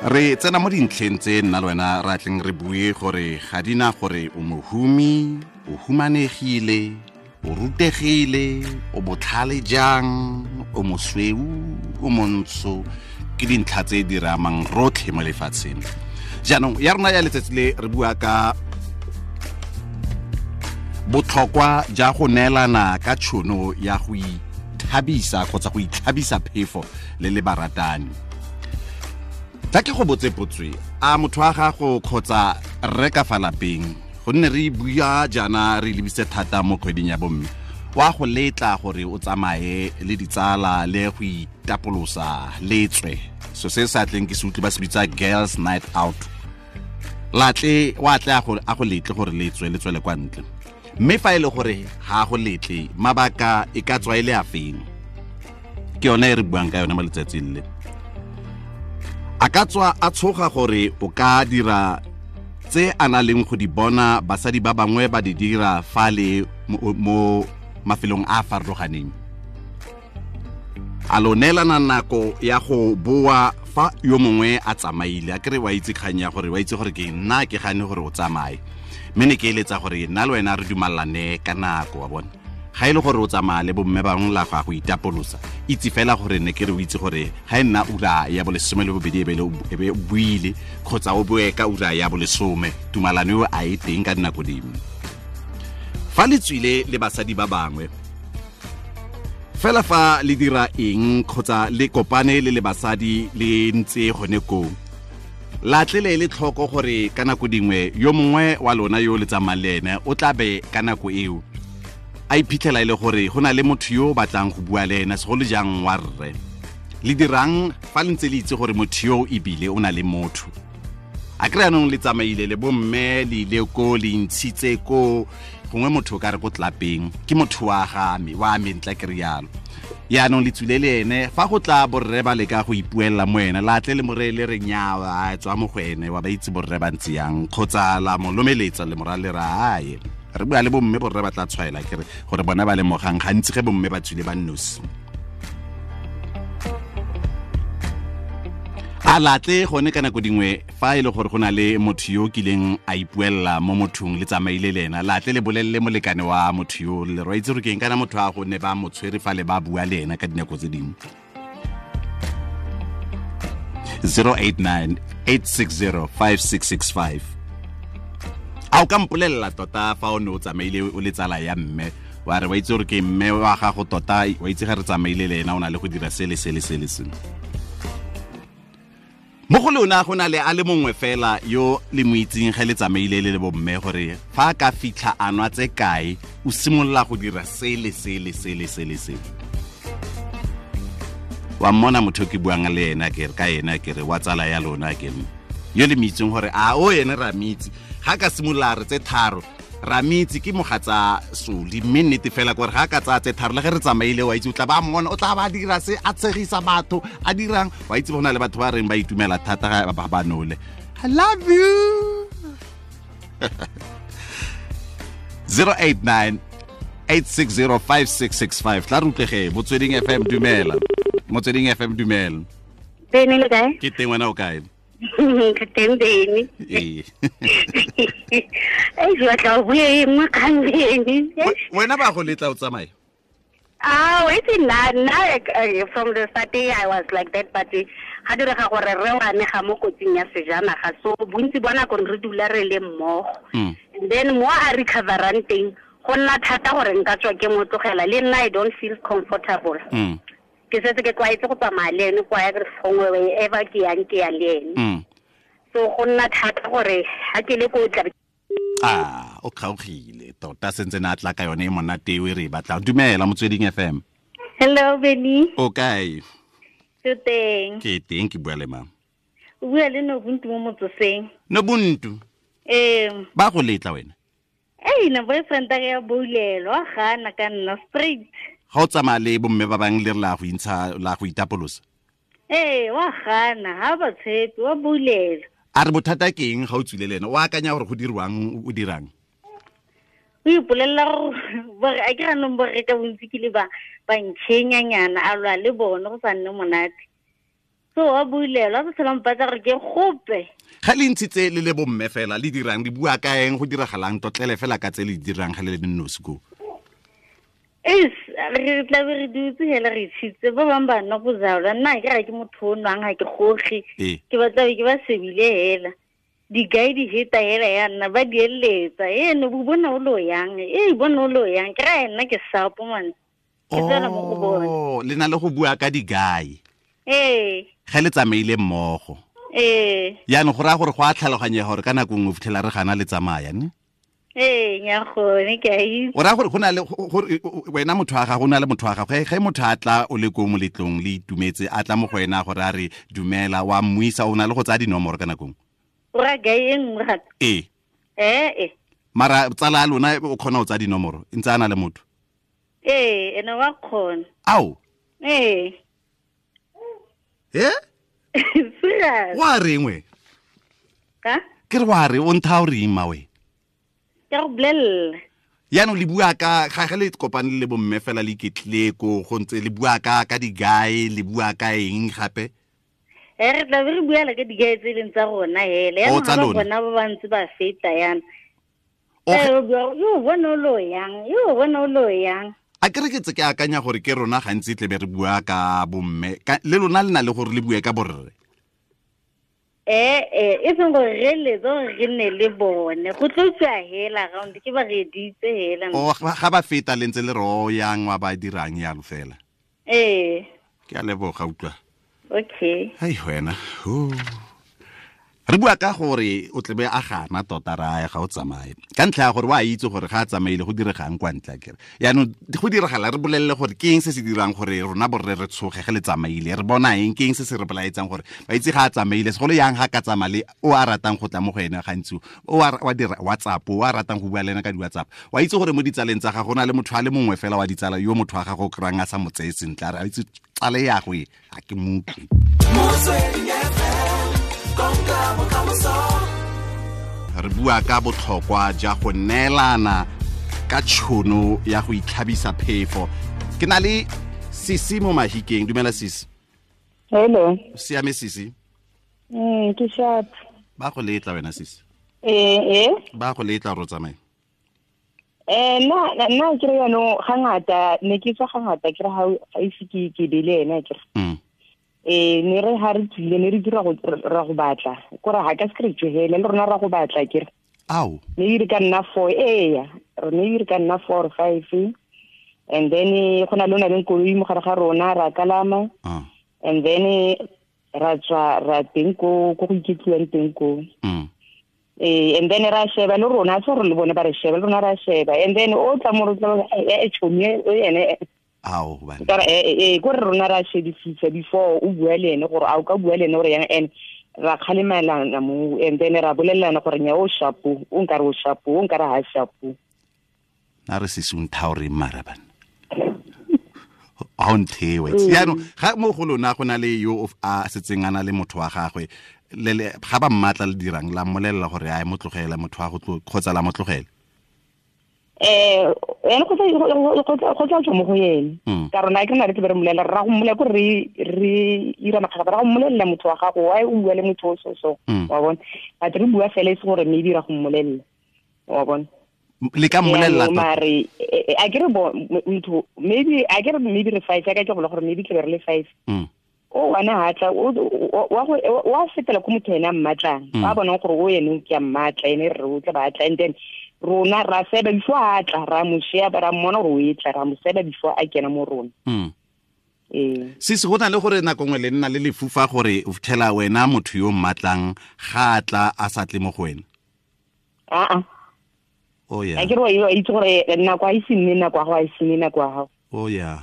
Re tsena mo dintlheng tse nna le wena ra tleng re bue gore ga di na gore o mohumi, o humanegile, o rutegile, o botlhale jang, o mosweu, o montsho, ke dintlha tse di re amang rotlhe mo lefatsheng. Jaanong ya rona ya letsatsi le re bua ka botlhokwa ja go neelana ka tšhono ya go ithabisa kgotsa go itlhabisa phefo le le baratani. Tla ke go botse potswe, a motho wa gago kgotsa rre ka fa lapeng, gonne re bua jaana re lebise thata mo kgweding ya bomme, wa go letla gore o tsamaye le ditsala le go itapolosa le tswe, so se sa tleng ke se utlwe ba se bitsa girls night out, latle wa tle a go letle gore le tswe le tswele kwa ntle. Mme fa e le gore ga go letle, mabaka e ka tswa e le a feng? Ke yone e re buang ka yone mo letsatsing le. A ka tswa a tshoga gore o ka dira tse a na leng go di bona basadi ba bangwe ba di dira fa le mo mafelong a a farologaneng. A lo neelana nako ya go boa fa yo mongwe a tsamaile, a kere wa itse kgang ya gore wa itse gore ke nna ke gane gore o tsamaye, mme ne ke eletsa gore nna le wena re dumalane ka nako, wa bona. Ga e le gore o tsamaya le bomme bangwe la go ya go itapolosa, itse fela gore ne ke re o itse gore ga e nna ura ya bolesome le bobedi e be o buile, kgotsa o boe ka ura ya bolesome, tumalano eo a e teng ka dinako dingwe. Fa le tswile le basadi ba bangwe fela, fa le dira eng kgotsa le kopane le le basadi le ntse gone koo, latle le tlhoko gore ka nako dingwe yo mongwe wa lona yo le tsamayang le ene o tla be ka nako eo a iphitlhela e le gore go na le motho yo o batlang go bua le ene, segolo jang wa rre. Le dirang fa le ntse le itse gore motho yo ebile o na le motho? A kry anong le tsamaile le bomme, le ile ko, le ntshitse ko gongwe motho o ka re ko tlapeng, ke motho wa ga me, wa me ntla ke rialo. Yaanong le tswile le ene, fa go tla borre ba leka go ipuelela mo ene, la tle le more le re nyawa, a tswa mo go ene, wa ba itse borre ba ntse yang, kgotsa la mo lomeletsa le mora le ra aye. Re bua le bomme, borre ba tla tshwaela ke re gore bona ba lemogang gantsi ge bomme ba tswile ba nnosi. A latle gone ka nako dingwe fa e le gore go na le motho yo kileng a ipuelela mo mothong le tsamaile le ena, latle le bolelele molekane wa motho yo, le re itse gore ke eng kana motho a go ne ba mo tshwere fa le ba bua le ena ka dinako tse dingwe. 089 860 5665. A o ka mpolelela tota fa o ne o tsamaile o le tsala ya mme, wa re wa itse gore ke mme wa gago tota, wa itse ga re tsamaile le ena o na le go dira sele sele sele sele. Mo go lona go na le a le mongwe fela yo le mo itseng ge le tsamaile le le bomme, gore fa a ka fitlha a nwa tse kae o simolola go dira sele sele sele sele sele. Wa mmona motho ke buang le ena ke re ka ena ke re wa tsala ya lona ke re yo le mo itseng gore a o ene ra mitse, ga ka simolola re tse tharo ra mitse ke mogatsa soli, mme nnete fela gore ga ka tsaya tse tharo le ge re tsamaile wa itse o tla ba mmona, o tla ba dira se a tshegisa batho a dirang, wa itse go na le batho ba reng ba itumela thata ga ba ba nole. I love you. 089 860 5665. Tla re utlwege Motsweding FM, dumela. Motsweding FM, dumela. Bene le kae? Ke teng, wena o kae? Ke teng Bene. Ee. Ei, ke batla go bua e nngwe kgang Bene. Wena ba go letla o tsamaye? Ah, wait, nna, from the start I was like that, but ga direga gore re wa amega mo kotsing ya sejanaga, so bontsi ba nako re dula re le mmogo. And then mo a recoverang teng, go nna thata gore nka tswa ke mo tlogela, le nna I don't feel comfortable. Ke setse ke tlwaetse go tsamaya le ene kwa gongwe wherever ke yang ke ya le ene. So go nna thata gore ha ke le ko tla. Ah, o kgaogile tota sentse na tla ka yone e monate e re batla. Dumela Motsweding FM. Hello Benny. O kae? Ke teng. Ke teng, ke bua le mang? O bua le Nobuntu mo motsoseng. Nobuntu? Ee. Ba go letla wena? Ei, na boyfriend a ya boulelo, a gana ka nna straight. Ga o tsamaya le bomme ba bangwe le re la go intsha, la go itapolosa? Ee, wa gana, ha ba tshepe, wa boulelo. A re bothata ke eng ga o tswile le ene? O akanya gore go dirwang, o dirang? O ipolelela gore a ke ganong borre ka bontsi ke le ba ntšhenyanyana, a lwa le bone go sa nne monate. So wa bulela ba tsela mpatla gore ke gope. Ga le ntshitse le le bomme fela le dirang le bua ka eng go diragalang totlele fela ka tse le dirang ga le le nosi ko. Is re tla be re dutse hela re tshitse ba bang ba nna bojalwa nna ke ga ke motho o nwang ga ke goge ke batla ke ba sebile hela digai di heta hela ya nna ba di eletsa ene bo bona o lo yang e bona o lo yang ke ra nna ke sapo man ke tsena mo go bona. Oh, le na le go bua ka digai. Ee. Ga le tsamaile mmogo. Ee. Yaanong go raya gore go a tlhaloganyega gore ka nako nngwe fitlhela re gana le tsamaya ne? Ee, nya gone ke a itse. O raya gore go na le gore wena motho wa gago o na le motho wa gago ge motho a tla o le ko moletlong le itumetse a tla mo go wena gore a re dumela wa mmuisa o na le go tsaya dinomoro ka nako nngwe. O raya gae e nngwe gape? Ee. Ee. Mara tsala ya lona o kgona go tsaya dinomoro e ntse a na le motho? Ee, ene wa kgona. Ao? Ee. Eh? Serious. Wa reng we? Ka? Ke re wa re o ntha o reng ma we? Ke go bolella. Yaanong le bua ka ga le kopane le bomme fela le iketlile ko go ntse le bua ka digae le bua ka eng gape? Re tla be re bua le ka digae tse leng tsa rona hele. Yaanong ba bona ba ba ntse ba feta yana. Yo bona o lo yang, yo bona o lo yang. A ke re ke tse ke akanya gore ke rona gantsi tle be re bua ka bomme le lona le na le gore le bue ka borre. E seng gore re letse gore re nne le bone go tlo tswa hela round ke ba reditse hela. O ga ba feta le ntse le ro yang wa ba dirang yalo fela. Ee. Ke a leboga utlwa. Okay. Hai wena. Re bua ka gore o tlebe a gana tota raya ga o tsamaye ka ntlha ya gore wa itse gore ga a tsamaile go diregang kwa ntle kere yaanong go diragala re bolelele gore ke eng se se dirang gore rona borre re tshoge ge le tsamaile re bona eng ke eng se se re bolaetsang gore ba itse ga a tsamaile segolo yang ga ka tsamale o a ratang go tla mo go ene gantsi o wa dira WhatsApp o a ratang go bua le ena ka di-WhatsApp wa itse gore mo ditsaleng tsa gago go na le motho a le mongwe fela wa ditsala yo motho wa gago o kry-ang a sa mo tseye sentle a re a itse tsale ya go e ga ke moutlwe. Re bua ka botlhokwa ja go neelana ka tšhono ya go itlhabisa phefo. Ke na le Sisi mo Mahikeng. Dumela Sisi. Hello. Siame Sisi? Ke sharp. Ba go letla wena Sisi? Ee. Ba go letla ro tsamaye? Nna ke re jaanong ga ngata ne ke tswa ga ngata ke re ga ise ke be le ena ke re. Ne re ha re tsile ne re dira go ra go batla kore ha ka se re tsohele le rona ra go batla ke re. Ao. Ne re ka nna 4 eya re ne re ka nna 4 or 5 and then go na le ona le koloi mo gare ga rona ra kalama. And then ra tswa ra teng ko go iketliwang teng ko. And then ra sheba le rona tso re le bone ba re sheba le rona ra sheba and then o tla mo re tla e chomi o ene. Ao bana. Ka re ko re rona ra shebisisa before o bua le ene gore a o ka bua le ene gore yang and ra kgalemelana mo and then ra bolelana gore nya o shapo o nkare o shapo o nkare ha shapo. Na re Sisi o ntha o reng mara bana? A o nthewe. Yaanong ga mo go lona go na le yo a setseng a na le motho wa gagwe le ga ba mmatla le dirang la mmolelela gore a mo tlogela motho wa go kgotsa la mo tlogela. Ene go tla tswa mo go ene ka rona ke nna re tle re mmolelela ra go mmolelela ko re ira makgakga ra go mmolelela motho wa gago why o bua le motho o so wa bona but re bua fela e se gore maybe ra go mmolelela wa bona le ka mmolelela mare a ke re motho maybe a ke re maybe re 5 ka ke go gore maybe tle re le 5 o wana ha tla wa fetela ko motho ena mmatlang ba bona gore o ene ke a mmatla ene re o tla batla and then rona ra seba before a tla ra mo sheba ra mmona gore o e tla ra mo seba before a kena mo rona. Sisi go na le gore nako nngwe le nna le lefufa gore o fitlhela wena motho yo mmatlang ga a tla a sa tle mo go wena. Aa. Oh yeah. A ke re wa itse gore nako a ise nne nako ya gago a ise nne nako ya gago. Oh yeah.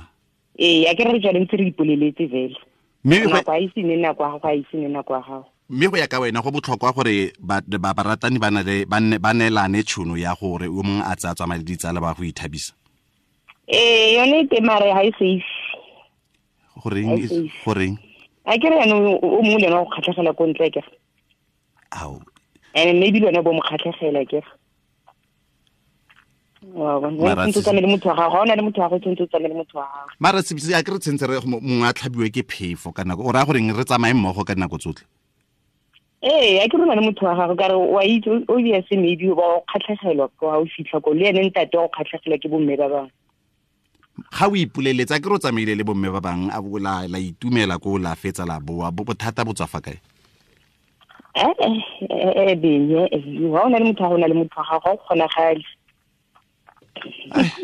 Ee, a ke re re ntse re ipoleletse fela. Nako a ise nne nako ya gago a ise nne nako ya gago. Mme go ya ka wena go botlhokwa gore ba baratani ba neelane tšhono ya gore o mongwe a tsaya tsamaya le ditsala ba go ithabisa. Ee, yone e mare ga e safe. Goreng? A ke re jaanong o mongwe le ena go kgatlhegela ko ntle kere. Ao. And maybe le wena bo mo kgatlhegela kere. Wa bona, o tshwanetse le motho wa gago, ga o na le motho wa gago, tshwanetse o tsamaye le motho wa gago. Mara se a ke re tshwanetse re mongwe a tlhabiwe ke phefo ka nako, o raya goreng re tsamaye mmogo ka dinako tsotlhe? Ee, a ke rona le motho wa gago, ka re wa itse obviously maybe ba o kgatlhegelwa ko ha o fitlha ko, le ene ntate wa go kgatlhegelwa ke bomme ba bangwe. Ga o ipoleletsa ke re o tsamaile le bomme ba bangwe, a bo la itumela ko la fetsa la boa, bothata bo tswa fa kae? Benye, ga o na le motho wa gago, o na le motho wa gago, ga o kgonagale.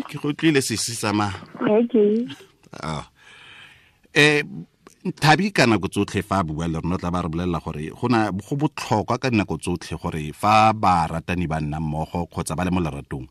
Ke go tlile sesi tsamaya. Okay. Thabi ka nako tsotlhe fa a bua le rona tla ba re bolelela gore go botlhokwa ka dinako tsotlhe gore fa ba ratani ba nna mmogo kgotsa ba le mo leratong,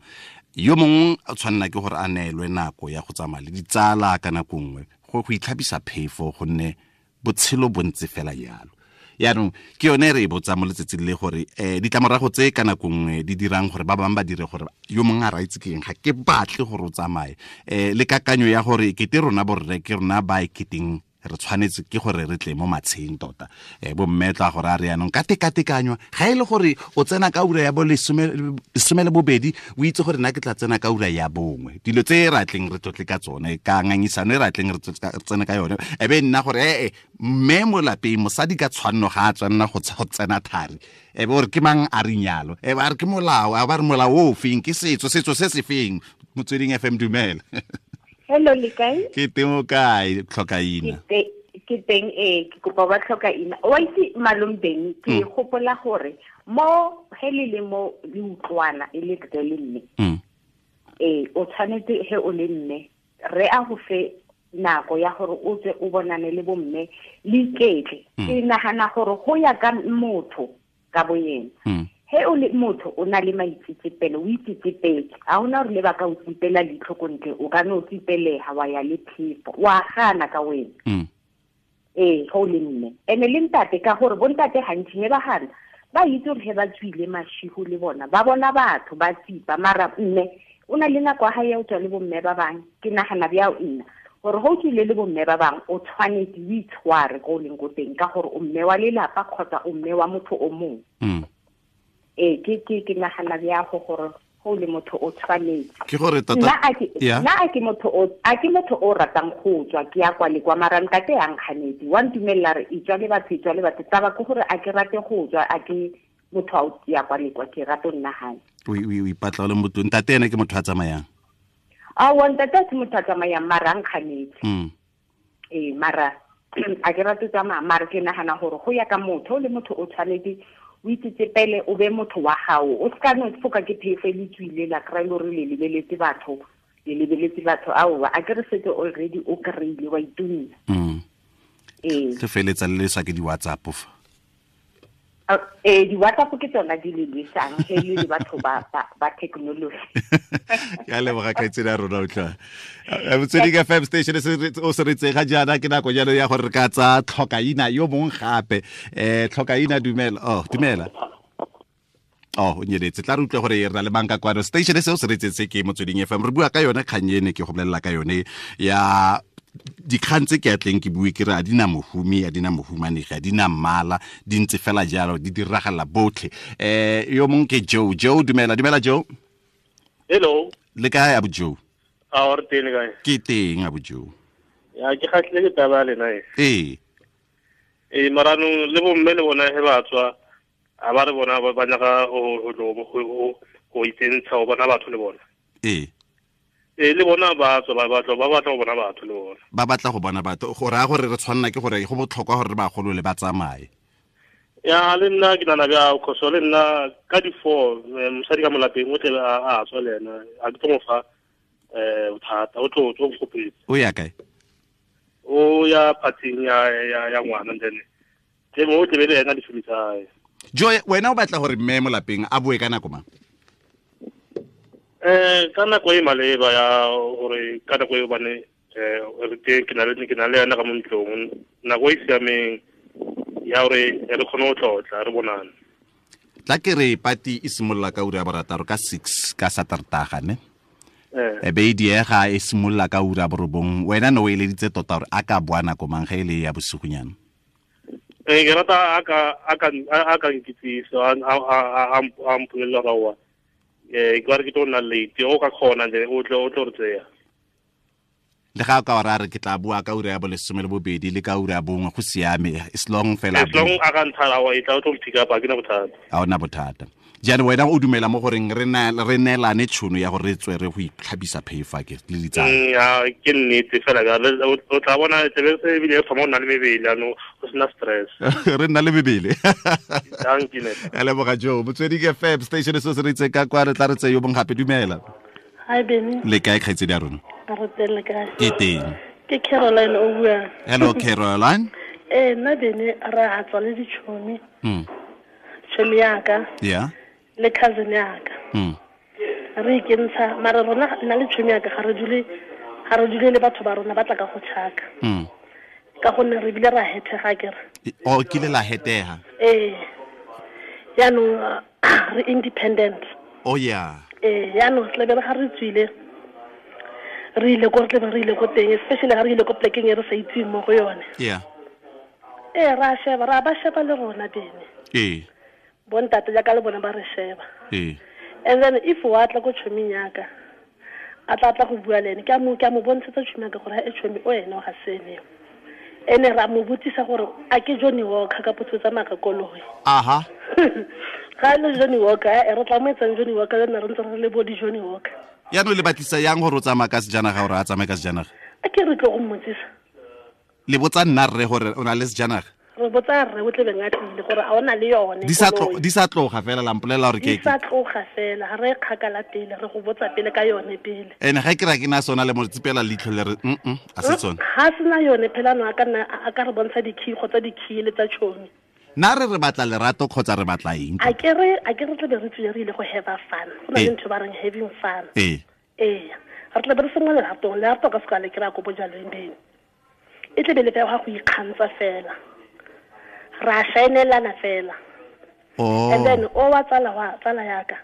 yo mongwe a tshwanela ke gore a neelwe nako ya go tsamaya le ditsala ka nako nngwe go itlhabisa phefo, gonne botshelo bo ntse fela jalo. Yaanong ke yone re e botsa mo letsatsing le gore ditlamorago tse ka nako nngwe di dirang gore ba bangwe ba dire gore yo mongwe a raitse ke eng, ga ke batle gore o tsamaye. Le kakanyo ya gore kete rona borre ke rona ba e keteng re tshwanetse ke gore re tle mo matsheng tota. Bomme tla gore a re yanong ka tekatekanywa, ga e le gore o tsena ka ura ya bo 12, o itse gore nna ke tla tsena ka ura ya 1. Dilo tse re atleng re tlotle ka tsone, ka ngangisano e re atleng re tsene ka yone, e be nna gore mme mo lapeng mosadi ka tshwanno ga a tshwanna go tsena thari, e be gore ke mang a re nyalo, e ba re ke molao, a ba re molao o feng, ke setso se se feng. Motsweding FM, dumela. Hello, le kae? Ke teng, o kae? Tlhokaina. Ke teng, ke kopa ba tlhokaina. Wa itse malome Beng, ke gopola gore mo he le le mo le utlwana e le rre le mme. O tshwanetse he o le mme, re a go fe nako ya gore o tswe o bonane le bomme le iketle. Ke nagana gore go ya ka motho ka boyena. He o le motho o na le maitsetsepelo, o itsetsepetse, ga ona gore le ba ka o tsipela leitlho ko ntle, o ka no o tsipelega wa ya le phefo, wa gana ka wena. Ee, ge o le mme. Ene le ntate, ka gore bontate gantsi he ba gana, ba itse gore he ba tswile mashigo le bona, ba bona batho ba tsipa, mara mme o na le nako ya hae ya o tswa le bomme ba bangwe. Ke nagana bjao nna gore ge o tswile le bomme ba bangwe, o tshwanetse o itshware ko o leng ko teng, ka gore o mme wa lelapa kgotsa o mme wa motho o mongwe. Ke nagana bjago gore go le motho o tshwanetse. Ke gore tota nna a ke motho o ratang go tswa, ke ya kwa le kwa, mara ntate ya nkganetse, wa ntumella re itswa le batho, taba ke gore a ke rate go tswa, a ke motho a o ya kwa le kwa, ke rate nna hae. O ipatla o le motho, ntate ene ke motho a tsamayang? Aowa, ntate a se motho a tsamayang, mara a nkganetse. Mara a ke rate tsamaya, mara ke nagana gore go ya ka motho, le motho o tshwanetse o itsetsepele, o be motho wa gago, o seka no foka ke phefo e le tswile la kry-e le gore le lebeletse batho, aowa, a ke re setse already o kry-ile wa itumela. Ke feletsa le leswa ke di-WhatsApp fa. Di-WhatsApp ke tsona di le lwesang, he le batho ba technology. Ke a leboga kgaitsedi ya rona, utlwa. Motsweding FM station o se re tsega jaana, ke nako jalo ya gore re ka tsa tlhokaina yo mongwe gape. Tlhokaina, dumela. Oh, dumela. Oh, o nyeletse. Tla re utlwe gore re na le mang ka kwano. Station se o se re tsetse ke Motsweding FM. Re bua ka yone kgang ene ke go bolelela ka yone ya dikgang tse ke atleng ke bue ke re a di na mohumi, a di na mohumanegi, a di na mmala, di ntse fela jalo, di diragala botlhe. Yo mongwe ke Joe. Joe, dumela. Dumela Joe. Hello. Le kae abu Joe? A re teng kae? Ke teng abu Joe. Ya ke kgatlhile ke taba le nna. Ee. Maranong le bomme le bona he ba tswa, a ba re bona ba nyaka go itsentsha go bona batho le bona. Ee. Le bona ba tswa ba batla go bona batho le bona. Ba batla go bona batho, go raya gore re tshwanela ke gore go botlhokwa gore re bagolole ba tsamaye. Ya le nna ke nana bja khoso le nna ka di 4 mosadi ka molapeng o tle a tswa le ena, a ke tlo mo fa bothata, o tlo nkgopetse. O ya kae? O ya phathing ya ngwana, then ke mo o tle be le ena di tsa. Joe, wena o batla gore mme mo lapeng a boe ka nako mang? Ka nako e maleba ya gore ka nako e bane re teng, ke na le yena ka mo ntlong, nako e siameng ya gore re kgone go tlotla re bonane. Tla ke re pati e simolola ka ura ya 6 ka 6 ka Satertaga, ne? E be e diega e simolola ka ura ya 9. Wena ne o eleditse tota gore a ka boa nako mang ge e le ya bosigonyana? Ke rata a ka nkitsisa, a mpolelela gore aowa, Ke ba re ke tlo nna late o ka kgona nje o tlo re tseya. Le ga ka ora re ke tla bua ka ura ya 12 le ka ura ya 1 go siame as long fela as long a ka nthara wa itla o tlo pick up a ke na bothata. A ona bothata. Jaanong wena o dumela mo goreng re neelane tšhono ya gore re tswe re go itlhabisa phefa ke le ditsala. Ya ke nnete fela ka o tla bona tsebe se ebile e thoma o nna le mebele ano go sena stress. Re nna le mebele. Thank you. A leboga Jo Motsweding FM station se se re itse ka kwa re tla re tse yo bong gape dumela. Hi Benny. Le kae kgaitsedi ya rona? Re teng le kae? Ke teng. Ke Caroline o buang. Hello Caroline. Nna Benny re a tswa le ditšhomi. Tšhomi yaka. Yeah. Le cousin yaka. Re ikentsha mara rona nna le tšhomi yaka ga re dule le batho ba rona ba tla ka go tšhaka. Ka gonne re bile ra hetega kere. O kile la hetega. Jaanong re independent. Oh yeah. Jaanong tle be re ga re tswile re ile ko re tle re ile ko teng especially ga re ile ko plekeng e re sa itseng mo go yone. Yeah. Ra sheba ra ba sheba le rona bene. Bontate jaaka le bona ba re sheba. And then if wa tla ko tšhoming yaka a tla go bua le ene ke a mo bontshetsa tšhomi yaka gore e tšhomi o ene o ga sene. Ene ra mo botsisa gore a ke Johnny Walker ka potso tsa maka koloi. Aha. Ga le Johnny Walker re tla mo etsang Johnny Walker le nna re ntse re le bo di Johnny Walker. Yaanong le batlisa yang gore o tsamaya ka sejanaga gore a tsamaye ka sejanaga? A ke re tlo go mmotsisa. Le botsa nna rre gore o na le sejanaga? Re botsa rre o tlebeng a tlile gore a ona le yone. Di sa tloga fela la mpolelela gore ke. Di sa tloga fela ga re kgakala pele re go botsa pele ka yone pele. Ene ga ke ra ke na sona le mo tsipela leitlho le re a se tsone. Ga sena yone phela no a ka nna a ka re bontsha di-key kgotsa di-key le tsa tšhomi. Na re batla lerato kgotsa re batla eng? A ke re tle be re tswile re ile go have fun. Go na le ntho ba reng having fun. Re tle be re sengwe leratong, lerato ka seka le kry-a ko bojalweng bene. E tle be le fela go ikgantsha fela. Ra shaenelana fela. Oh. And then o wa tsala yaka.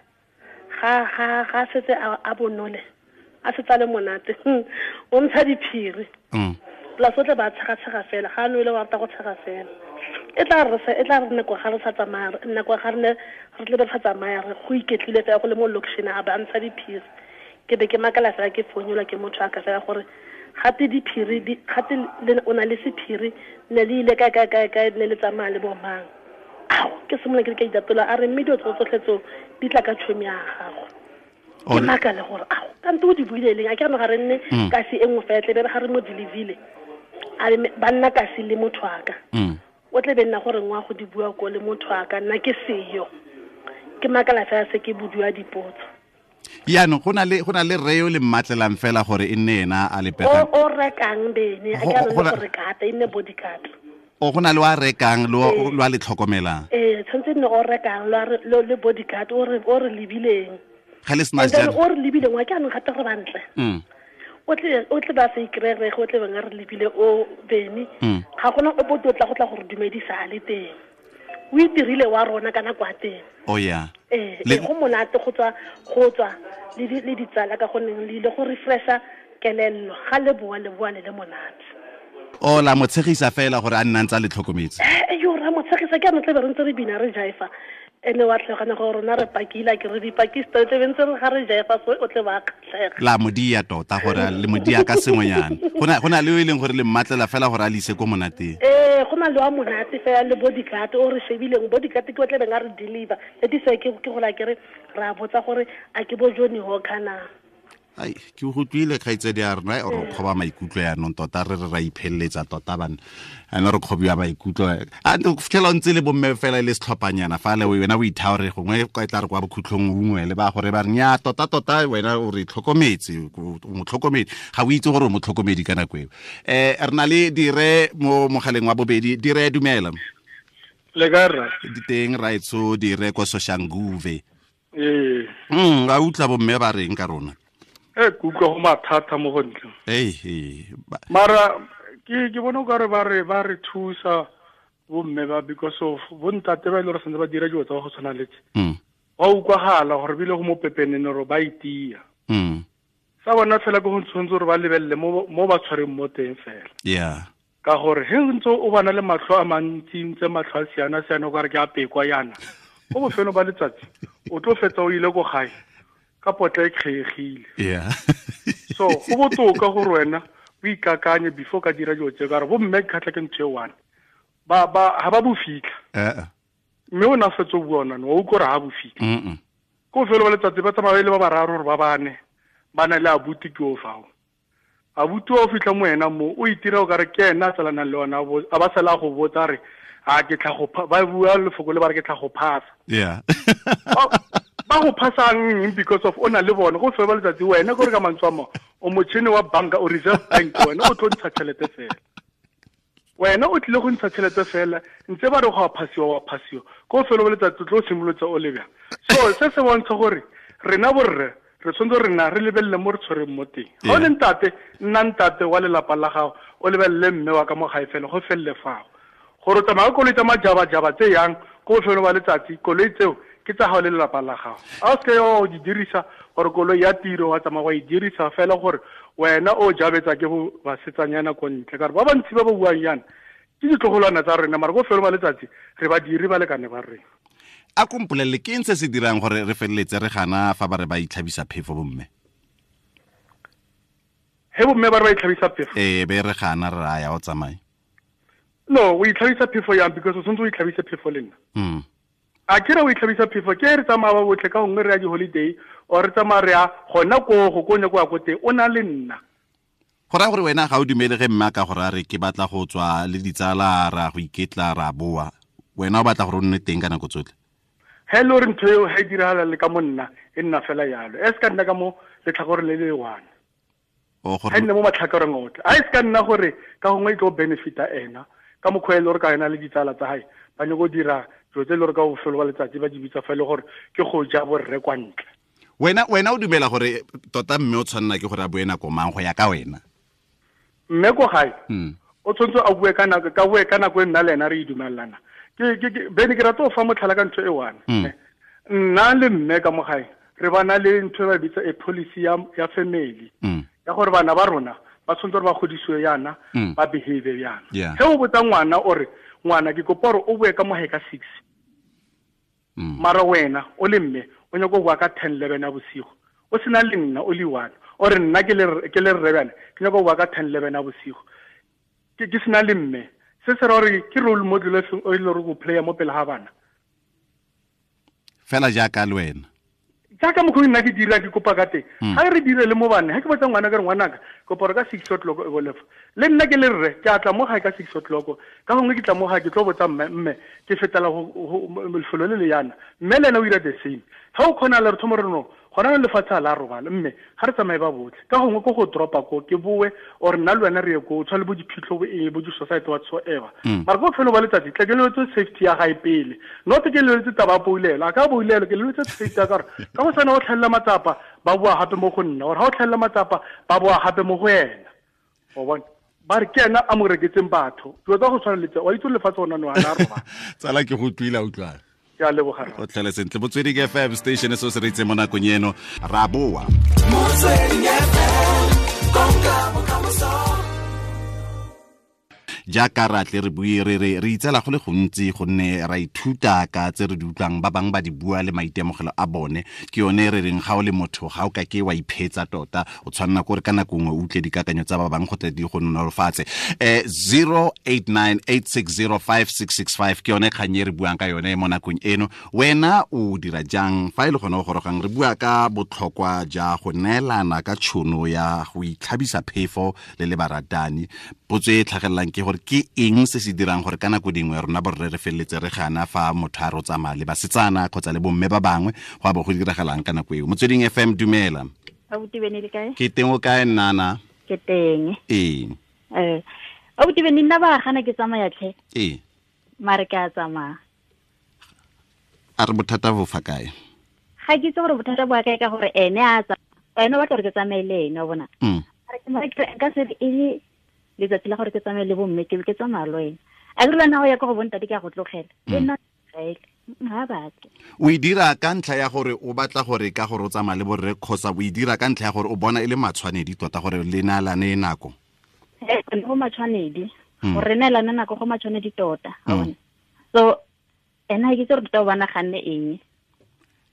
Ga setse a bonole. A setse le monate. O ntsha diphiri. Plus o tle ba tshega fela. Ga no ile wa rata go tshega fela. E tla re nako ga re sa tsamaya nako ga re ne re tle re sa tsamaya re go iketlile fela go le mo location a ba ntsha diphiri. Ke be ke makala fela ke founelwa ke motho a ka fela gore gate diphiri gate o na le sephiri ne le ile kae kae kae kae ne le tsamaya le bo mang. Ao ke simolola ke ka itatola a re mme dilo tsotlhe tseo di tla ka tšhomi ya gago. Ke makale gore ao kante o di buile leng a ke re ga re nne kasi e nngwe fela tle be re ga re mo deliverile a re ba nna kasi le motho a ka. O tle be nna gore ngwa go di bua ko le motho a ka nna ke seyo. Ke makala fela se ke bodua dipotso. Yaanong go na le rre yo le mmatlelang fela gore e nne ena a le pegang. O rekang bene a ke re gore kata e nne bodyguard. O go na le wa rekang lo a le tlhokomelang. Tshwanetse nne o rekang lo le bodyguard o re lebileng. Ga le sena jalo. O re lebileng wa ke anong gape re bantle. O tle ba se ikrere go tle bang re lebile o bene. Ga gona o bo tla go tla gore dumedisa a le teng. O itirile wa rona kana kwa teng. Oh yeah. Go monate go tswa le ditsala ka gonne le ile go refresha kelello ga le boa le boa le le monate. O la mo tshegisa fela gore a nna ntse le tlhokometse. Yo ra mo tshegisa ke a tle be re ntse re bina re jaifa. Ene wa tlhogana gore rona re pakila ke re dipakista tle be ntse re ga re jaifa so o tle ba kgatlhega. La modia tota gore le modia ka sengwenyana. Go na le o e leng gore le mmatlela fela gore a le ise ko monateng. Go na le wa monate fela le bodyguard o re shebileng bodyguard ke o tle beng a re deliver. That is why ke go la ke re ra botsa gore a ke bo Johnny Walker na. Ai ke go tlile kgaitsedi ya rona o re kgoba maikutlo ya nong tota re ra iphelletsa tota bana ene re kgobiwa maikutlo a ntse fitlhela o ntse le bomme fela le setlhophanyana fa le wena o ithaore gongwe e tla re kwa bokhutlhong ungwe le ba gore ba re nya tota tota wena o re tlhokometse o motlhokomedi ga o itse gore o motlhokomedi ka nako eo. Re na le dire mo mogaleng wa bobedi. Dire dumela. Le ka rra diteng raetso dire ko Soshanguve. Ee a utlwa bomme ba reng ka rona. Ke utlwa go mathata mo go ntle. Mara ke bona o kare ba re thusa bomme ba because of bontate ba ile gore santse ba dira dilo tsa go tshwana le tse. Wa utlwagala gore bile go mo pepenene gore ba itia. Sa bona fela ke go tshwanetse gore ba lebelele mo ba tshwareng mo teng fela. Yeah. Ka gore he ntse o bana le matlho a mantsi ntse matlho a siana siana o kare ke a pekwa yana. Ko bofelo ba letsatsi o tlo fetsa o ile ko gae. ka potla e kgegile. Yeah. So go botoka gore wena o ikakanye before ka dira dilo tse, ka gore bo mme kgatlha ke ntho e one. Ba ha ba bo fitlha. Mme o na fetso bua ona, o utlwa gore ha bo fitlha. Ko felo ba letsatsi ba tsamaya le ba bararo gore ba bane ba na le abuti ke o fao. Abuti o fitlha mo wena mo o itira o kare ke ena a tsalanang le ona, a ba sala go botsa re a ke tla go ba bua lefoko le ba re ke tla go phasa. Yeah. Ba go phasang because of o na le bona go felo ba letsatsi wena gore ka mantswe a mo o motšhini wa banka o Reserve Bank, wena o tlo ntsha tšhelete fela. Wena o tlile go ntsha tšhelete fela ntse ba re go a phasiwa wa phasiwa ko felo ba letsatsi tlo simolotsa o lebja. So se se bontsha gore rena borre re tshwanetse rena re lebelele mo re tshwereng mo teng. Ga o le ntate, nna ntate wa lelapa la gago, o lebelele mme wa ka mo gae fela go felele fao. Gore o tsamaya koloi tsa majabajaba tse yang ko bofelo ba letsatsi, koloi tseo ke tsa gago le lelapa la gago. A o seke o di dirisa gore koloi ya tiro wa tsamaya wa e dirisa fela gore wena o jabetsa ke bo basetsanyana ko ntle, ka gore ba bantsi ba ba buang yana ke ditlogolwana tsa rena, mara ko bofelo ba letsatsi re badiri ba lekane ba rena. A kompolele ke eng se se dirang gore re feleletse re gana fa ba re ba itlhabisa phefo bomme? He bomme ba re ba itlhabisa phefo? Ee, be re gana re raya o tsamaye. No, o itlhabisa phefo yang because o tshwanetse o itlhabise phefo le nna. A ke re o itlhabisa phefo ke re tsamaya ba botlhe ka gongwe re ya di-holiday or re tsamaya re ya gona koo go ko nyako ya ko teng, o na le nna. Go raya gore wena ga o dumele ge mme a ka gore a re ke batla go tswa le ditsala ra go iketla ra boa, wena o batla gore o nne teng ka nako tsotlhe? He le gore ntho eo ha e diragala le ka mo nna e nna fela yalo, e se ka nna ka mo letlhakoreng le le one. Ha e nne mo matlhakoreng otlhe, a e se ka nna gore ka gongwe e tlo benefita ena ka mokgwa e le gore ka ena le ditsala tsa hae ba nyako dira dilo tse e le gore ka bofelo ba letsatsi ba di bitsa fa e le gore ke go ja borre kwa ntle. Wena o dumela gore tota mme o tshwanela ke gore a bue nako mang go ya ka wena? Mme ko gae o tshwanetse a bue ka nako, ka bue ka nako e nna le ena re e dumelana. Ke bene ke rata go fa motlhala ka ntho e one. Nna le mme ka mo gae re bana le ntho e ba bitsa a policy ya family ya gore bana ba rona ba tshwanetse gore ba godisiwe yana, ba behave yana. Ge o botsa ngwana o re ngwana ke kopa gore o bue ka mo gae ka 6. Mara wena o le mme o nyaka go bua ka 10 11 ya bosigo, o sena le nna o le one, o re nna ke le rre bjale ke nyaka go bua ka 10 11 ya bosigo ke sena le mme. Se se ra gore ke role model e feng o e le gore go playa mo pele ga bana fela jaaka le wena jaaka mokgwa nna ke dira ke kopa ka teng. Ga re dire le mo bane, ga ke botsa ngwana ka re ngwanaka kopa gore ka 6 o'clock e bolefa le nna ke le rre ke a tla mo gae ka 6 o'clock, ka gongwe ke tla mo gae ke tlo botsa mme ke fetela lefelo le le yana, mme le ena o dira the same. Ga o kgona le re thomo re no gona le lefatshe a la robala mme ga re tsamaye ba botlhe, ka gongwe ko go dropa ko ke boe or nna le wena re ye ko tshwa le bo diphitlho bo eng bo di-society whatsoever. Mara ko bofelo ba letsatsi tla ke leletse safety ya gae pele, not ke leletse taba ya poulelo, a ka poulelo ke leletse safety ya ka gore ka go sana o tlhelela matsapa ba boa gape mo go nna, or ga o tlhelela matsapa ba boa gape mo go ena. O bona ba re ke ena a mo reketseng batho, dilo tsa go tshwana le tse wa itse lefatshe gona no a la roba. Tsala ke go utlwile, utlwana. Ke a leboga. O tlhele sentle. Motsweding FM station se se re itse mo nakong eno ra boa. Motsweding FM, konka bokamoso. Jaaka ra tle re bue re re itsela go le gontsi gonne ra ithuta ka tse re di utlwang ba bangwe ba di bua le maitemogelo a bone. Ke yone re reng ga o le motho ga o ka ke wa iphetsa tota, o tshwanela ke gore ka nako nngwe o utlwe dikakanyo tsa ba bangwe go tle di go nolofatse. 0898605665 ke yone kgang e re buang ka yone mo nakong eno. Wena o dira jang fa e le gone o gorogang? Re bua ka botlhokwa ja go neelana ka tšhono ya go itlhabisa phefo le le baratani. Potso e tlhagelelang ke gore ke eng se se dirang gore ka nako dingwe rona borre re feleletse re gana fa motho a re o tsamaya le basetsana kgotsa le bomme ba bangwe, go a bo go diragalang ka nako eo. Motsweding FM, dumela. Abuti Bene le kae? Ke teng, o kae nnana? Ke teng. Ee. Abuti Bene, nna ba gana ke tsamaya tlhe. Ee. Mare ke a tsamaya. A re bothata bo fa kae? Ga ke itse gore bothata bo kae ka gore ene a tsamaya, ene o batla gore ke tsamaye le ene, wa bona. Mare ke nka se e le letsatsi la gore ke tsamaye le bomme ke tsamaya le wena. A ke re lwana go ya ko go bontate ke a go tlogela. E nna ga batle. O e dira ka ntlha ya gore o batla gore ka gore o tsamaya le borre kgotsa o e dira ka ntlha ya gore o bona e le matshwanedi tota gore le neelane nako? Go matshwanedi. Gore re neelane nako go matshwanedi tota. So ena ke itse gore tota o ba naganne eng.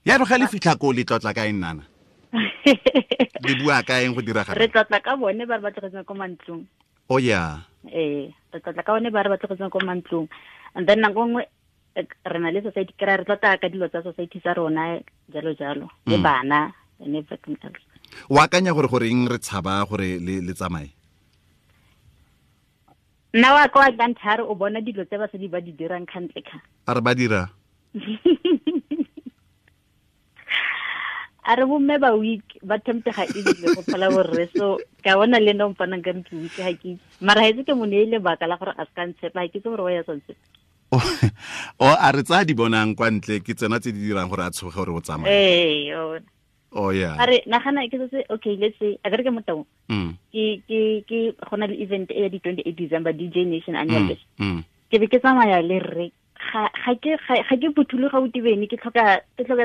Ya re ga le fitlha ko le tlotla ka eng nana? Le bua ka eng go diragala? Re tlotla ka bone ba re ba tlogetseng ko mantlong. Oh yeah. Ee, re tlotla ka bone ba re ba tlogetseng ko mantlong. And then nako nngwe re na le society, kry re tlotla ka dilo tsa society sa rona jalo jalo, le bana and everything else. O akanya gore goreng re tshaba gore le tsamaye? Nna wa ka wa kanthare o bona dilo tse basadi ba di dirang kgantle kha. A re ba dira? A re bomme ba weak, ba temptega easily go phala borre, so ka bona le nna o mpanang ka re ke weak, ga ke itse. Mara ha itse ke mo neile lebaka la gore a se ka ntshepa, ga ke itse gore wa ya sa ntshepa. O a re tsaya di bonang kwa ntle ke tsena tse di dirang gore a tshoge gore o tsamaye. Ee, yona. Oh yeah. A re nagana ke se, okay, let's say a ke mo taung. Ke go na le event e ya di 28 December DJ Nation annual. Ke be ke tsamaya le rre. Ga ke phuthuloga o tibene, ke tlhoka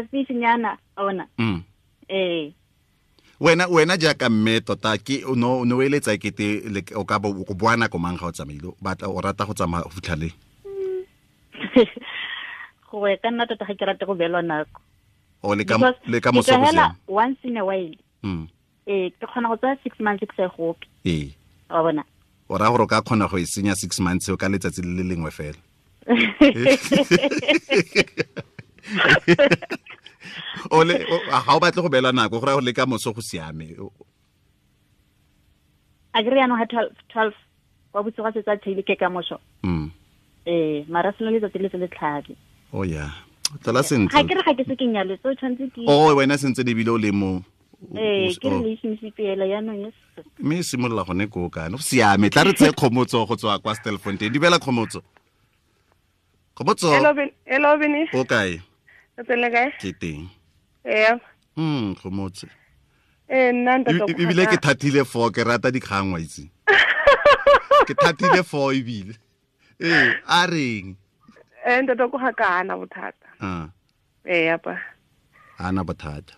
space nyana, a bona. Ee. Wena jaaka mme tota ke no no eletsa kete o ka bo go boa nako mang ga o tsamaile, batla o rata go tsamaya go fitlha le? Go ya ka nna tota ga ke rate go beelwa nako. O le ka moso go siame. Once in a while. Ee, ke kgona go tsaya 6 months ke sa gope. Ee. Wa bona. O raya gore o ka kgona go e senya 6 months ka letsatsi le le lengwe fela. O le ga o batle go beela nako, go raya gore le ka moso go siame. A ke re jaanong ga 12 kwa bosigo ga setse a tshele ke ka moso. Ee, mara selo letsatsi le se le tlhabe. Oh yeah. Tla sentle. Ga ke re ga ke se ke nyalwe, so tshwanetse ke. Oh, wena sentse le bile o le mo. Ee, ke relationship ela jaanong yes. Mme e simolola gone koo kana. Go siame, tla re tseye Kgomotso go tswa kwa Stilfontein. Dumela Kgomotso. Kgomotso. Hello Beni. O kae? O tsele kae? Ke teng. Ee. Kgomotso. Ee, nna ntate. Ebile ke thatile 4, ke rata dikgang wa itse. Ke thatile 4 ebile. Ee, a reng? Ee, ntate ko ga ka ana bothata. Ee, apa. Ana bothata.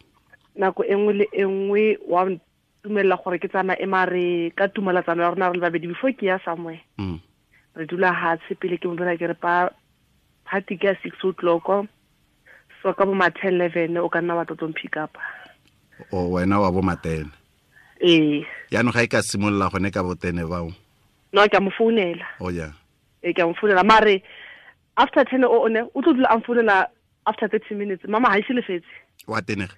Nako e nngwe le e nngwe wa ntumella gore ke tsamaye mare ka tumelatsano ya rona re le babedi before ke ya somewhere. Re dula hatshe pele ke mo bona ke re pa party ke ya 6 o'clock. So ka bo ma 10 11 o ka nna wa tlo pick up. O wena wa bo ma 10. Ee. Yaanong ga e ka simolola gone ka bo 10 bao. No, ke a mo founela. Oh yeah. Ee, ke a mo founela mare after 10 o ne o tlo dula a mfounela after 30 minutes. Mama ha ise lefetse. Wa tenega.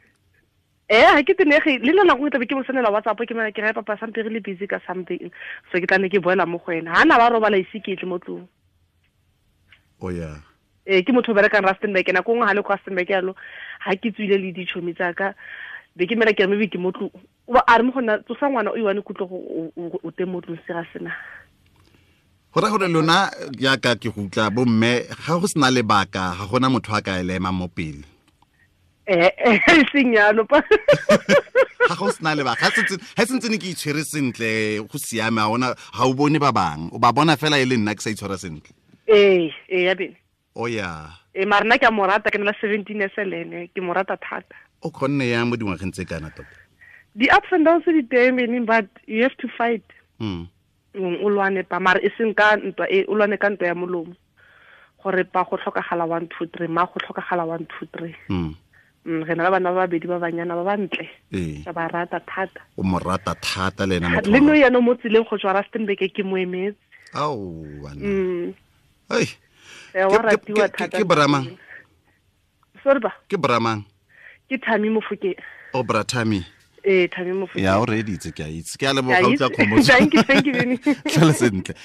Eh, ha ke tenege le nna nako e tlabe ke mo sendela WhatsApp ke mena ke re papa sampe re le busy ka something. So ke tla ne ke boela mo go ena. Ha na ba robala ise ke tle mo tlong. Oh yeah. Eh, ke motho o berekang Rustenburg, nako nngwe ha le kwa Rustenburg yalo, ha ke tswile le ditšhomi tsa ka, be ke mena ke re maybe ke mo tlong. O ba a re mo go nna tsosa ngwana o iwane kutlo go o teng mo tlong se ga sena. Go raya gore lona jaaka ke go utlwa bomme ga go sena lebaka ga gona motho a ka e ema mo pele. Eh, seng yalo pa. Ga go sena lebaka, ga sentse ne ke itshwere sentle go siame, ga ona ga o bone ba bang, o ba bona fela e le nna ke sa itshwara sentle. Ee, ee ya bene. Oh yeah. Ee, mara nna ke a mo rata, ke na le 17 years le ene, ke mo rata thata. O kgonne yang mo dingwageng tse kana tota? Di ups and downs di teng meaning, but you have to fight. O lwane pa, mara e seng ka ntwa e, o lwane ka ntwa ya molomo. Gore pa go tlhokagala 1 2 3, ma go tlhokagala 1 2 3. Re na le bana ba babedi ba banyana ba bantle. Ee. Ka ba rata thata. O mo rata thata le ena motho. Le no yana mo tseleng go tswa Rustenburg ke mo emetse. Ao bana. Ai. Wa ratiwa thata. Ke Bramang. Sorry ba. Ke Bramang. Ke Thami Mofokeng. O bra Thami. Ee, Thami Mofokeng. Ya o reeditse, ke a itse. Ke a leboga utlwa Kgomotso. Thank you, Benny. Tlhole sentle.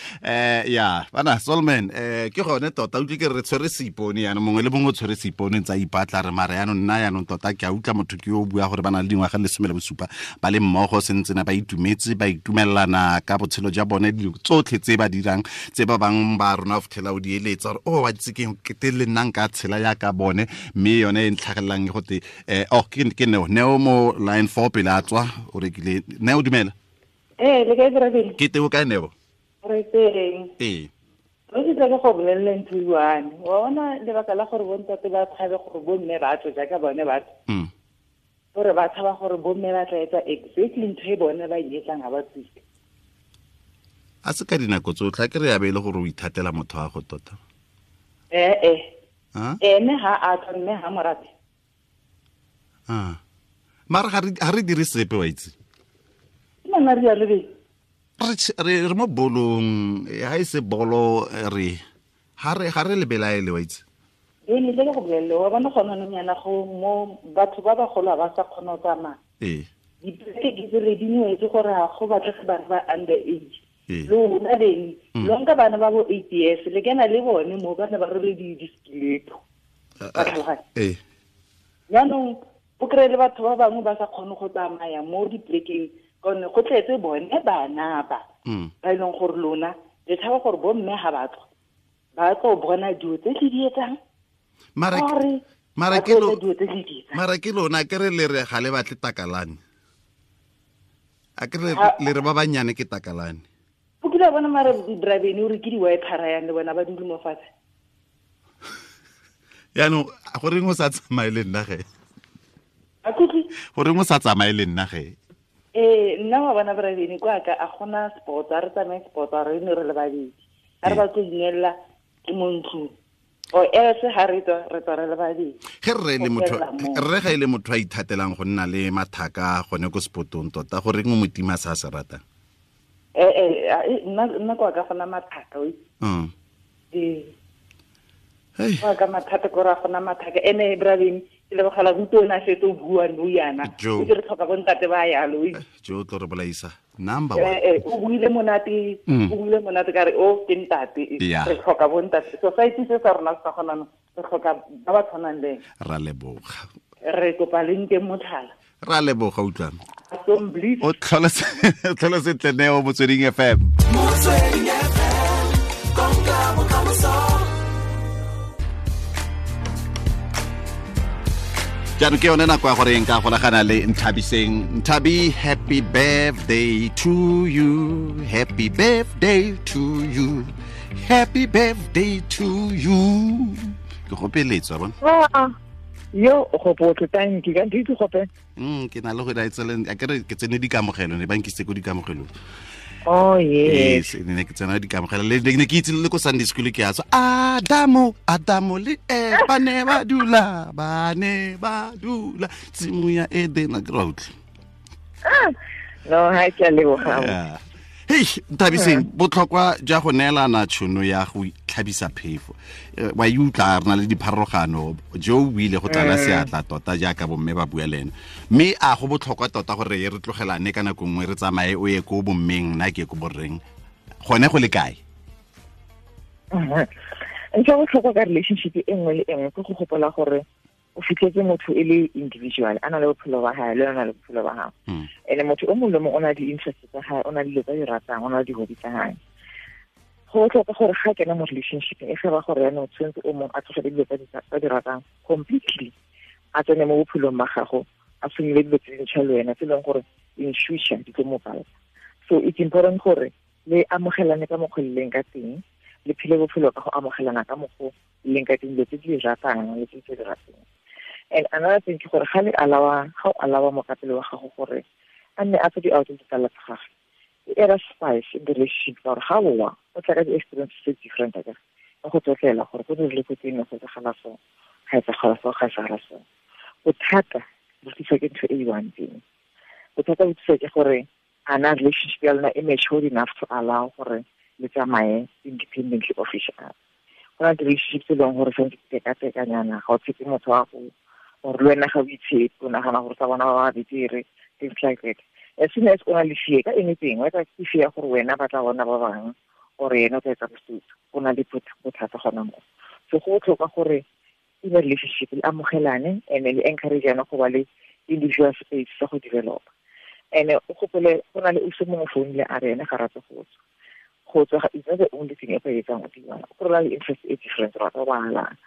Ya, bana Solman, ke gone tota utlwe ke re tshwere seipone yana mongwe le mongwe o tshwere seipone ntse a ipatla re mara yanong nna yanong tota ke a utlwa motho ke yo o bua gore ba na le dingwaga le 17 ba le mmogo sentse na ba itumetse ba itumelelana ka botshelo jwa bone dilo tsotlhe tse ba dirang tse ba bang ba rona o fitlhela o di eletsa gore o wa itse ke ke le nna nka tshela yaka bone mme yone e ntlhagelelang e gote oh ke Neo mo line 4 pele a tswa o rekile. Neo dumela. Ee, le kae Brabele? Ke teng o kae Neo? Re teng. Ee. Re ke tla go bolelela ntho e one. Wa bona lebaka la gore bontate ba tshabe gore bomme ba tswe jaaka bone ba tswe. Gore ba tshaba gore bomme ba tla etsa exactly ntho e bone ba e etsang ha ba tswile. A se ka dinako tsotlhe a ke re ya be e le gore o ithatela motho wa go tota. Ee. Ene ha a tswa mme ha mo rate. Mara ga re dire sepe wa itse. Nna re ya le be. Re mo bolong, ha e se bolo re ha re lebelaele wa itse. E ne le go bolelle wa bona gona nong yana go mo batho ba bagolo ba sa kgona go tsamaya. Ee. Dipeke di tsere di nwetse gore ga go batlege bana ba under age. Lona beng lo nka bana ba bo 8 years le kena le bone mo bana ba rwele di-stiletto. Ba tlhaloganya. Ee. Jaanong o kry-e le batho ba bangwe ba sa kgone go tsamaya mo dipolekeng gonne go tletse bone bana ba. Ba e leng gore lona le tshaba gore bo mme ga ba tswa ba tlo bona dilo tse le di etsang. Mara ke lona ke re le re ga le batle takalane. A ke le re ba banyane ke takalane. O kile bona mara driving o re ke di wiper yang le bona ba dule mo fatshe. Yaanong go reng o sa tsamaye le nna ge? A kutlwe? Go reng o sa tsamaye le nna ge? Nna wa bona driving kwa ka a gona sport, a re tsamaye sport, a re ne re le babedi. A re ba tlo inella ke mo ntlong. O else ha re tswa re tswa re le babedi. Ge rre le motho rre ga ile motho a ithatelang go nna le mathaka gone ko spotong tota go reng o motima sa se ratang? Nna kwa ka gona mathaka o. Hey. Kwa ka mathata go ra gona mathaka ene braveng ke le bogala go na setse o bua no yana. O ke re tlhoka bo ntate ba yalo. Jo tlo re bolaisa. Number 1. O buile monate, o buile monate ka re o ke ntate. Re tlhoka bo ntate. Society se sa rona sa gona re tlhoka ba ba tshwanang le. Ra leboga. Re kopa le nke motlhala. Ra leboga utlwana. O tlhola sentle Neo Motsweding FM. Motsweding FM, konka bokamoso. Jaanong ke yone nako ya gore nka golagana le Nthabiseng. Nthabi, happy birthday to you. Happy birthday to you. Happy birthday to you. Ke gopeletswa bona. Yo o gopotse thank you ka ntse gope. Ke na le go daetsele a ke re ke tsene dikamogelo ne ba nkisitse ko dikamogelong. Oh yes. Yes, ne ke tsena dikamogelo le ne ke itse le ko Sunday school ke a tswa Adamo le ba ne ba dula tshimo ya Eden a ke ra utlwa. No ha ke le boga. Hey, Nthabiseng, botlhokwa jwa go neelana tšhono ya go tlhabisa phefo. Wa e utlwa re na le dipharologano jo o ile go tlala seatla tota jaaka bomme ba bua le ena. Mme a go botlhokwa tota gore re tlogelane ka nako nngwe re tsamaye o ye ko bommeng nna ke ko borreng. Gone go le kae? Ntho ya botlhokwa ka relationship e nngwe le e nngwe ke go gopola gore o fitlhetse motho e le individual a na le bophelo ba hae le na le bophelo ba gago. Ene motho o mongwe le mongwe o na le di-interest tsa hae, o na le dilo tsa di ratang, o na le di-hobby tsa hae. Go botlhokwa gore ga kena mo relationship e ge ba gore yaanong tshwanetse o mongwe a tlogele dilo tsa di ratang completely, a tsene mo bophelong ba gago, a simolole dilo tse dintšha le wena tse e leng gore in future di tlo mo pala. So it's important gore le amogelane ka mokgwa le leng ka teng, le phele bophelo ka go amogelana ka mokgwa le leng ka teng, dilo tse di ratang le tse di rateng. And another thing ke gore ga le alawa, ga o alawa mokapelo wa gago gore a nne a tswe di-out ditsala tsa gagwe, e era spice in the relationship ka gore ga boa o tla ka di-experience tse different akere, ka go tlotlela gore go dirile ko teng go etsagala so, ga etsagala so, ga etsagala so. Bothata bo tliswa ke ntho e i-one teng. Bothata bo tliswa ke gore a na relationship ya lona e matured enough to allow gore le tsamaye independently of each other. Go na le relationship tse e leng gore santse di tekatekanyana, ga o tshepe motho wa go or le wena ga o itshepe, o nagana gore tsa bona ba ba betere, things like that. As soon as o na le fear ka anything, whether ke fear gore wena ba tla bona ba bangwe or ena o tla etsa bosutu, o na le bothata gona mo. So go botlhokwa gore in a relationship le amogelane and le encourage-ane go ba le individual space sa go develop. And o gopole go na le o se mongwe founile a re ene ga rate go tswa. Go tswa is not the only thing e ka etsang o dirang. Go na le interest e different, o rata go bala,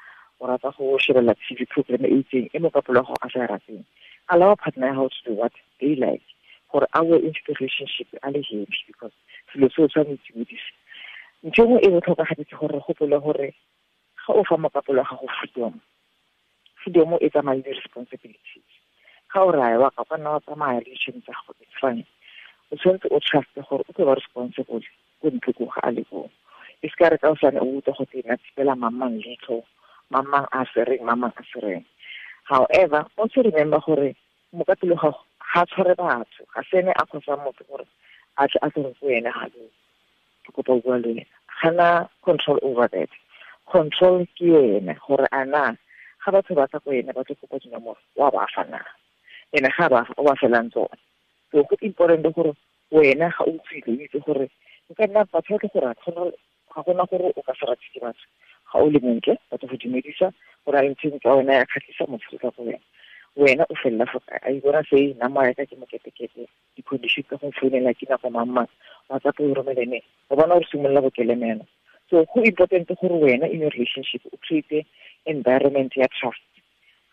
o rata go shebelela TV program e itseng e mokapelo wa gago a sa e rateng. Allow partner how to do what they like gore a we into the relationship a le happy because selo seo tshwanetse o dise. Ntho e nngwe e botlhokwa gape ke gore re gopole gore ga o fa mokapelo wa gago freedom, freedom e tsamaya le di-responsibilities. Ga o raya wa ka nna wa tsamaya le ditšhono tsa gago, it's fine. O tshwanetse o truste gore o tlo ba responsible ko ntle ko ga a le koo. E se ka re ka osane o utlwa go tena tshepela mamang leitlho, mamang a sereng, mamang a sereng. However, also remember gore Mokapelo ga ga tshware batho, ga sene a khosa motho gore a tle a tsere go wena ga lo ke kopa go bua le wena. Gana control over that. Control ke ene gore ana ga batho ba tla go ene ba tlo kopa dinomoro wa ba fa na, ene ga ba o ba felang tsone. So go important gore wena ga o tswile o itse gore o ka nna batho ba tlo go rata, ga gona gore o ka se rate ke batho. Ga o le montle ba tlo go dumedisa gore a ntse tsa wena ya kgatlhisa motho ka go wena. Wena o felela fo kae? A ibona se nama ya ka ke moketekete, di-condition tsa go founela ke nako mang mang, WhatsApp o romele ne, o bona o simolola go kelemela. So go important gore wena in your relationship o create environment ya trust.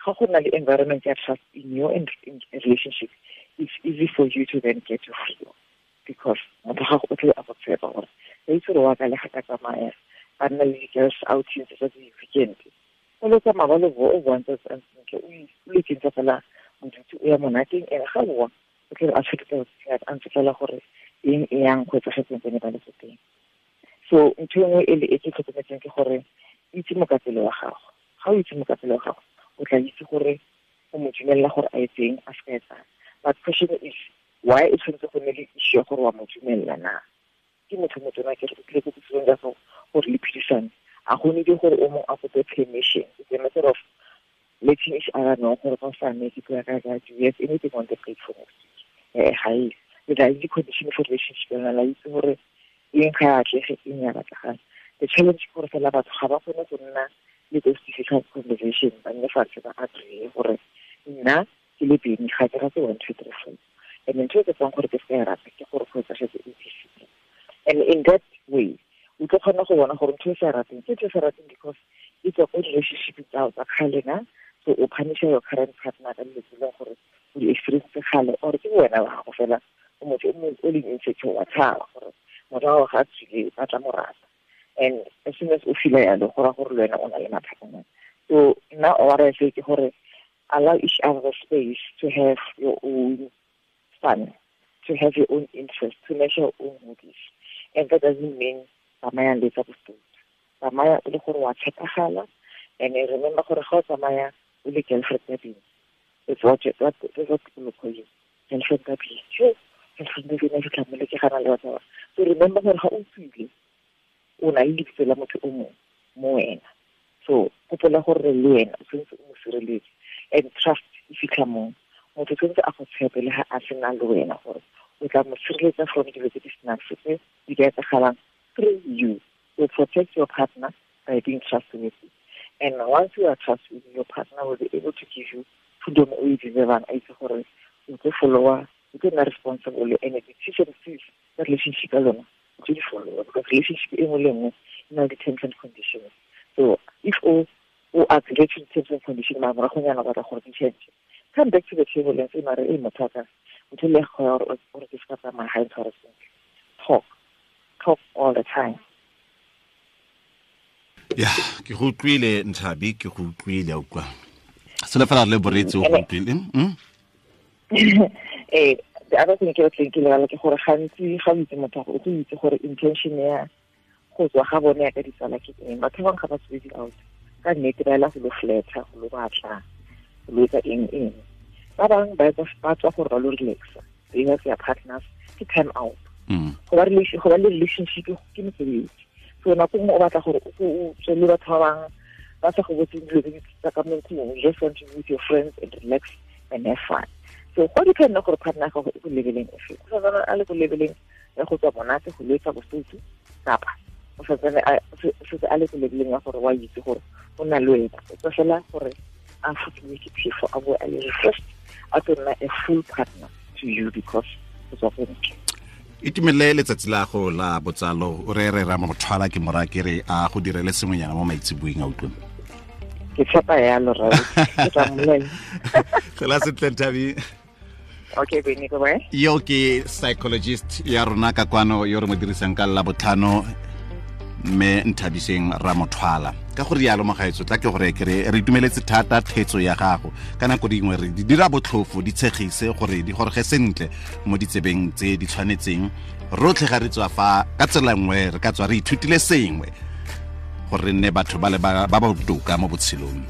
Ga go na le environment ya trust in your in relationship, it's easy for you to then get your freedom, because motho ga o tle a go tshepa gore ba itse gore wa ka le ga ka tsamaya ba nna le di-girls outings tsa di-weekend, o lo tsamaya ba lo o bontse sentle, o lo ikentsa fela bodutu, o ya monateng, ene ga boa o tle a tshwere a ntse fela gore eng e yang go etsagetseng tsene ba le ko teng. So ntho e nngwe e le e ke tlhokometseng ke gore itse mokapelo wa gago. Ga o itse mokapelo wa gago, o tla itse gore o mo dumelela gore a etseng, a se ka etsang. But question is, why e tshwanetse go nne le issue ya gore wa mo dumelela na? Ke motho motona ke re o tlile ko botshelong jwa gago gore le phedisane, a go need gore o mongwe a kope permission. It's a matter of letting each other know gore ka sane ke tlo ya ka ka, do you have anything on the plate for next week? Ga e le tla itse condition for relationship ya lona, la itse gore eng ga e atlege, eng ya batlagala. The challenge ke gore fela batho ga ba kgone go nna le those difficult conversation, ba nne fatshe ba agree gore nna ke le Beni ga ke rate 1 2 3 4, and ntho e ke tsang gore ke se ka e rata ke gore go etsagetse A B C D. And in that way o tlo kgona go bona gore ntho e sa rateng ke ntho e sa rateng because e tswa ko relationship tsa tsa kgale na. So o punisha your current partner ka dilo tse e leng gore o di experience kgale, or ke wena wa gago fela o motho o leng insecure, wa tshaba gore motho wa gago ga a tswile ba tla mo rata. And as soon as o feel yalo, go raya gore le wena o na le mathata. So nna what I say ke gore allow each other the space to have your own fun, to have your own interest, to measure your own hobbies. And that doesn't mean tsamaya le tsa bostutu. Tsamaya o le gore wa tshepagala, and remember gore ga o tsamaya o le girlfriend ya Beni, it's what people call you, girlfriend ya Beni. Sure, girlfriend ya Beni, ke tla mo le ke gana le batho ba. So remember gore ga o tswile o na le lebitso la motho o mongwe mo wena. So gopola gore le wena o tshwanetse o mo sireletse, and trust e fitlha moo. Motho tshwanetse a go tshepe le ga a sena le wena gore o tla mo sireletsa from dilo tse di senang sepe di ka etsagalang through you. So protect your partner by being trustworthy. And once you are trustworthy, your partner will be able to give you freedom o e deservang, a itse gore o tlo followa, o tlo nna responsible, and the decision tsa relationship ya lona o tlo di followa, because relationship e nngwe le nngwe e na le di-terms and conditions. So if o agree to the terms and conditions, mara moragonyana o batla gore di change, come back to the table and say, mara e motho wa ka, motho le go ya gore ke se ka tsamaya ga e ntshware sentle. Talk all the time. Ya, ke go utlwile Nthabi, ke go utlwile a utlwa. Sele fela le boretsi o go utlwile. The other thing ke batleng ke lebala ke gore gantsi ga o itse motho o tlo itse gore intention ya go tswa ga bone ya ka ditsala ke eng. Batho ba bangwe ga ba tswe di-out ka nnete, ba ela go lo fletha, go lo batla, go lo etsa eng eng. Ba bangwe ba tswa gore ba lo relaxa, they have their partners, ke time out. Go ba le relationship ke mosebetsi. So nako nngwe o batla gore o tswe le batho ba bangwe ba sa go botseng dilo tse di tsa ka mo ntlong, you just want to be with your friends and relax and have fun. So go depend gore partner ya gago e ko leveleng efe. O santsane a le ko leveleng ya go tswa monate, go letsa bosutu, kapa o santsane a le ko leveleng ya gore wa itse gore o na le wena. O tswa fela gore a fokiwe ke phefo, a boe a le refreshed, a tlo nna a full partner to you because o tswa ko ntle. Itumelele letsatsi la go la botsalo, o re re ra mothwala ke mora ke re a go direle sengwenyana mo maitseboeng a utlwe. Ke tshepa yalo rra, ke tla mmolelela. Tlhola sentle Nthabi. Okay, Beni, bye. Yo ke psychologist ya rona ka kwano yo re mo dirisang ka la botlhano, mme Nthabiseng Ramothwala. Ka go rialo mogaetso, tla ke gore ke re re itumeletse thata thetso ya gago. Ka nako dingwe re di dira botlhofo, di tshegise gore di gorege sentle mo ditsebeng tse di tshwanetseng. Rotlhe ga re tswa fa ka tsela nngwe re ka tswa re ithutile sengwe gore re nne batho ba le ba ba botoka mo botshelong.